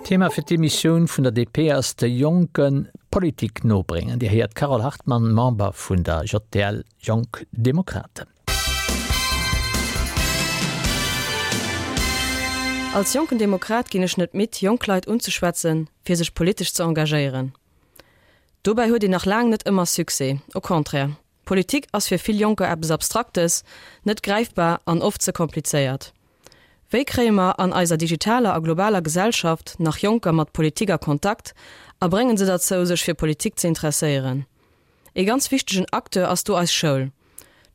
Thema fir d'Emissioun vun der DP ass de Jonke Politik nobréngen. Dir héiert d'Carole Hartmann, Member vun der JDL, Jonk Demokraten. Als jonken Demokrat ginn ech net midd, jonk Leit unzeschwätzen, fir sech politesch ze engagéieren. Dobäi huet een nach laang net ëmmer Succès, au contraire, Politik ass fir vill Jonker eppes Abstraktes, net gräifbar an oft ze komplizéiert. Wéi kréie mer an eiser digitaler a globaler Gesellschaft nach Jonker mat Politik a Kontakt a bréngen se derzou, sech fir Politik ze interesséieren? Ee ganz wichtegen Acteur ass do eis Schoul.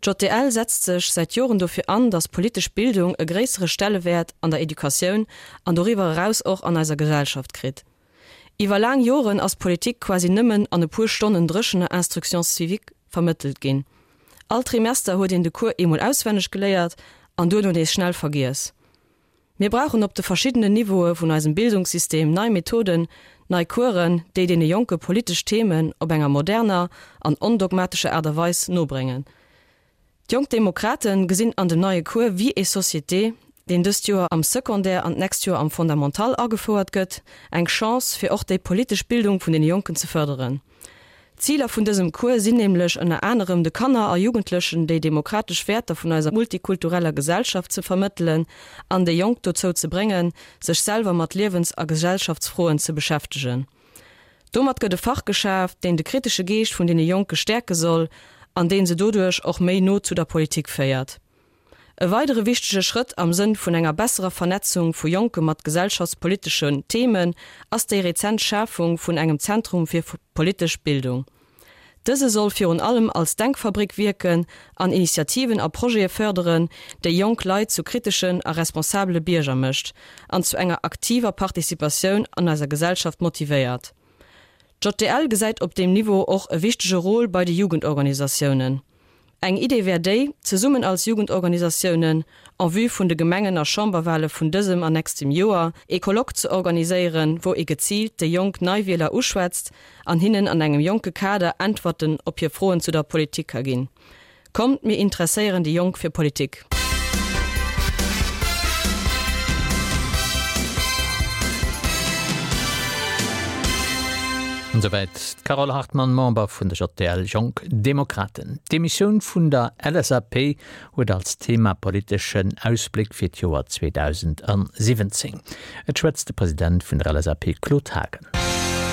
D'JDL setzt sech säit Joren dofir an, datt politesch Bildung e gréissere Stellewäert an der Educatioun an doriwwer eraus och an eiser Gesellschaft kritt. Iwwer laang Joren ass Politik quasi nëmmen an e puer Stonnen dréchener Instruction civique vermëttelt ginn. All Trimester huet een de Cours eemol auswenneg geléiert an duerno nees schnell vergiess. Mir brauchen op de verschiddenen Niveaue vun eisem Bildungssystem nei Methoden, nei Coursen, déi deene Jonke politesch Themen op enger moderner an ondogmatescher Aart a Weis nobréngen. D'Jonk Demokraten gesinn an dem neie Cours Vie et Société, deen dëst Joer am Secondaire an d'nächst Joer am Fondamental agefouert gëtt, eng Chance, fir och déi politesch Bildung vun deene Jonken ze fërderen. D'Ziler vun dësem Cours sinn nämlech ënner anerem de Kanner a Jugendlechen déi demokratesch Wäerter vun eiser multikultureller Gesellschaft ze vermëttelen an déi Jonk dozou ze bréngen, sech selwer mat Liewens a Gesellschaftsfroen ze beschäftegen. Domat gëtt e Fach geschaaft, deen de kritesche Geescht vun deene Jonke stäerke soll an deen se doduerch och méi no zu der Politik féiert. E weidere wichtege Schrëtt am Sënn vun enger besserer Vernetzung vu Jonke mat gesellschaftspoliteschen Themen ass déi rezent Schafung vun engem Zentrum fir politesch Bildung. Dëse soll virun allem als Denkfabrik wierken an Initiativen a Projete fërderen, déi jonk Leit zu kriteschen a responsabele Bierger mécht an zu enger aktiver Participatioun an eiser Gesellschaft motivéiert. D'JDL gesäit op deem Niveau och e wichtege Rôle bei de Jugendorganisatiounen. Eng Idee wär déi, zesummen als Jugendorganisatiounen, en vue vun de Gemengen a Chamberwale vun dësem an nächstem Joer, ee Colloque ze organiséieren, wou ee geziilt déi jonk Neiwieler uschwätzt an hinnen an engem jonke Kader Äntwerten op hir Froen zu der Politik ka ginn. Kommt, mir interesséieren déi Jonk fir Politik! Esouwäit d'Carole Hartmann, Member vun der JDL Jonk Demokraten. D'Demissioun vun der LSAP huet als Thema politeschen Ausbléck fir d'Joer 2017. Et schwätzt de President vun der LSAP Claude Haagen.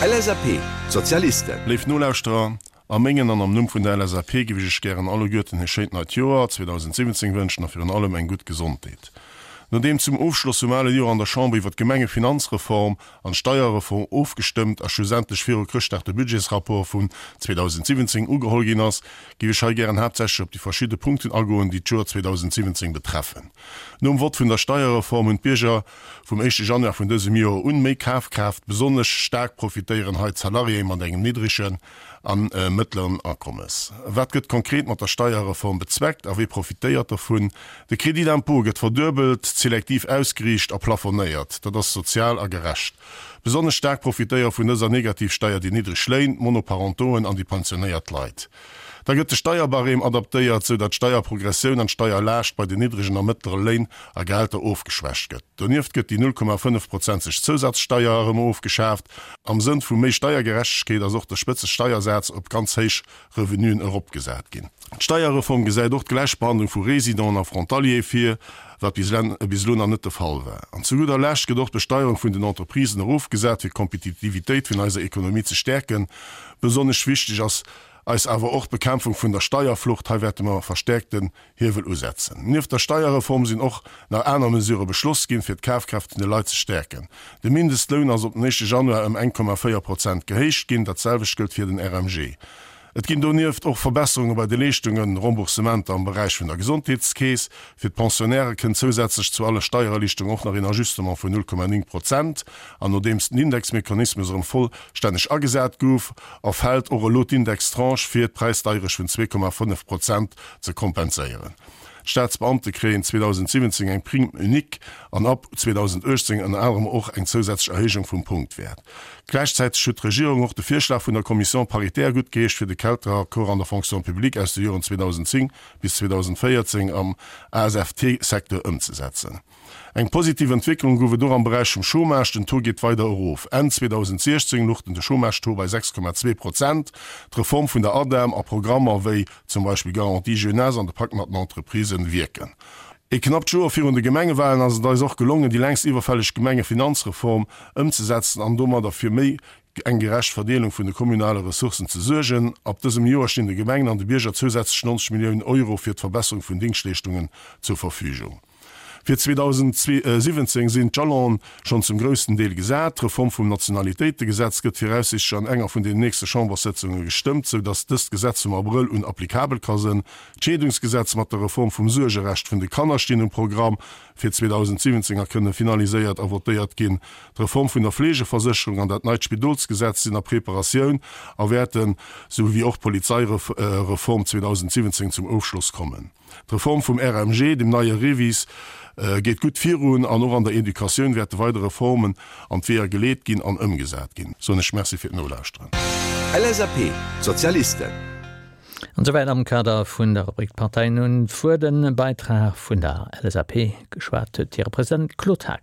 LSAP, D'Sozialisten. Léif Nolauschterer, a mengen an am Numm vun der LSAP géif ech iech gären alleguerten e schéint neit Joer 2017 wënschen a virun allem eng gutt Gesondheet. Nodeem zum Ofschloss vum ale Joer an der Chamber iwwer d'Gemengefinanzreform an d'Steierreform ofgestëmmt a schlussendlech viru Chrëschtdag de Budgetsrapport vun 2017 ugeholl ginn ass, géif ech hei gären haaptsächlech op déi verschidde Punkten agoen, déi d'Joer 2017 betreffen. Nom Vott vun der Steierreform hunn d'Bierger vum éischte Januar vun dësem Joer un méi Kafkraaft. Besonnesch staark profitéieren hei d'Salariéë mat engem niddregen a mëttleren Akommes. Wat gëtt konkret mat der Steierreform bezweckt a wie profitéiert dovun? De Crédit d'impôt gëtt verduebelt, selektiv ausgeriicht a plafonéiert. Dat ass sozial a gerecht. Besonnesch staark profitéiere vun dëser Negativsteier déi niddreg Léin, d'Monoparentoen an déi pensionéiert Leit. Da gëtt de Steierbarème adaptéiert, sou datt d'Steierprogressioun an d'Steierlaascht bei den niddregen a mëttlere Léin a Gehälter ofgeschwächt gëtt. Donieft gëtt déi 0,5 prozenteg Zousatzsteier erëm ofgeschaaft. Am Sënn vu méi Steiergerechtegkeet ass och de Spëtzesteiersaz op ganz héich Revenuen eropgesat ginn. D'Steierreform gesäit och d'Gläichbehandlung vu Résidenten a Frontaliere vir, wat bis elo nach net de Fall war. An zu gudder Lescht gëtt och d'Besteierung vun den Entreprisen erofgesat, fir d'Kompetitivitéit vun eiser Ekonomie ze stäerken. Besonnesch wichteg ass eis awer och d'Bekämpfung vun der Steierflucht. Hei wäerte mer verstäerkten Hiewel usetzen. Nieft der Steierreform sinn och nach aner Mesurë beschloss ginn, fir d'Kafkraaft vun de Leit ze stäerken. De Mindestloun ass op den éischte Januar ëm 1,4 Prozent gehéicht ginn. Dat selwecht gëllt fir den RMG. Et ginn donieft och Verbesserunge bei de Leeschtungen, Remboursementer am Beräich vun der Gesondheetskeess. Fir d'Pensionnairë kënnt zousätzlech zu alle Steiererliichterungen och nach een Ajustement vun 0,9 Prozent. An nodeems den Indexmechanismus erëm vollstänneg agesat gouf, erfält och elo d'Indextranche fir d'Präisdeierecht vun 2,5 Prozent ze kompenséieren. D'Staatsbeamte kréien 2017 eng Prime unique an ab 2018 ënner anerem och eng zousätzlech Erhéijung vum Punktwäert. Gläichzäiteg huet d'Regierung och de Virschlag vun der Commission paritaire guttgeheescht, fir de Kelteraccord an der Fonction publique aus de Joren 2010 bis 2014 am ASFT-Secteur ëmzesetzen. Eng positiv Entwécklung gouf et och am Beräich vum Chômage, den Taux geet weider erof. Enn 2016 luch den de Chômage-Taux bei 6,2 Prozent. D'Reform vun der ADEM a Programmer wéi zum Beispill Garantie Jeunesse an de Pakt mat den Entreprisen wierken. E knappt Joer virun de Gemengewalen ass et eis och gelongen, déi längst iwwerfälleg Gemengefinanzreform ëmzesetzen an domadder fir méi eng gerecht Verdeelung vun de kommunale Ressourcen ze suergen. Ab dësem Joer stinn de Gemengen an de Bierger zousätzlech 90 Milliounen Euro fir d'Verbesserung vun Dingschtleeschtungen zur Verfügung. Fir 2017 sinn d'Jalonen schonn zum groussen Deel gesat. D'Reform vum Nationalitéitegesetz gëtt viraussichtlech an enger vun den nächste Chamberssëtzunge gestëmmt, sou datt dëst Gesetz vum Abrëll un applikabel ka sënn. D'Scheedungsgesetz mat der Reform vum Suergerecht vun de Kanner stinn um Programm fir 2017 a kënne finaliséiert a votéiert ginn. D'Reform vun der Fleegeversécherung an dat neit Spidolsgesetz sinn a Preparatioun a wäerten, sou wéi och d'Polizeireform 2017 zum Ofschloss kommen. D'Reform vum RMG, dem neie REVIS, geet gutt virun an och an der Educatioun wäerte weider Reformen an d'Weeër geleet ginn an ëmgesat ginn. Soen ech Merci fir d'Nolauschteren. LSAP, D'Sozialisten. An esouwäit am Kader vun der Rubrik D'Parteien hunn d'Wuert. E Beitrag vun der LSAP, geschwat huet hire President Claude Haagen.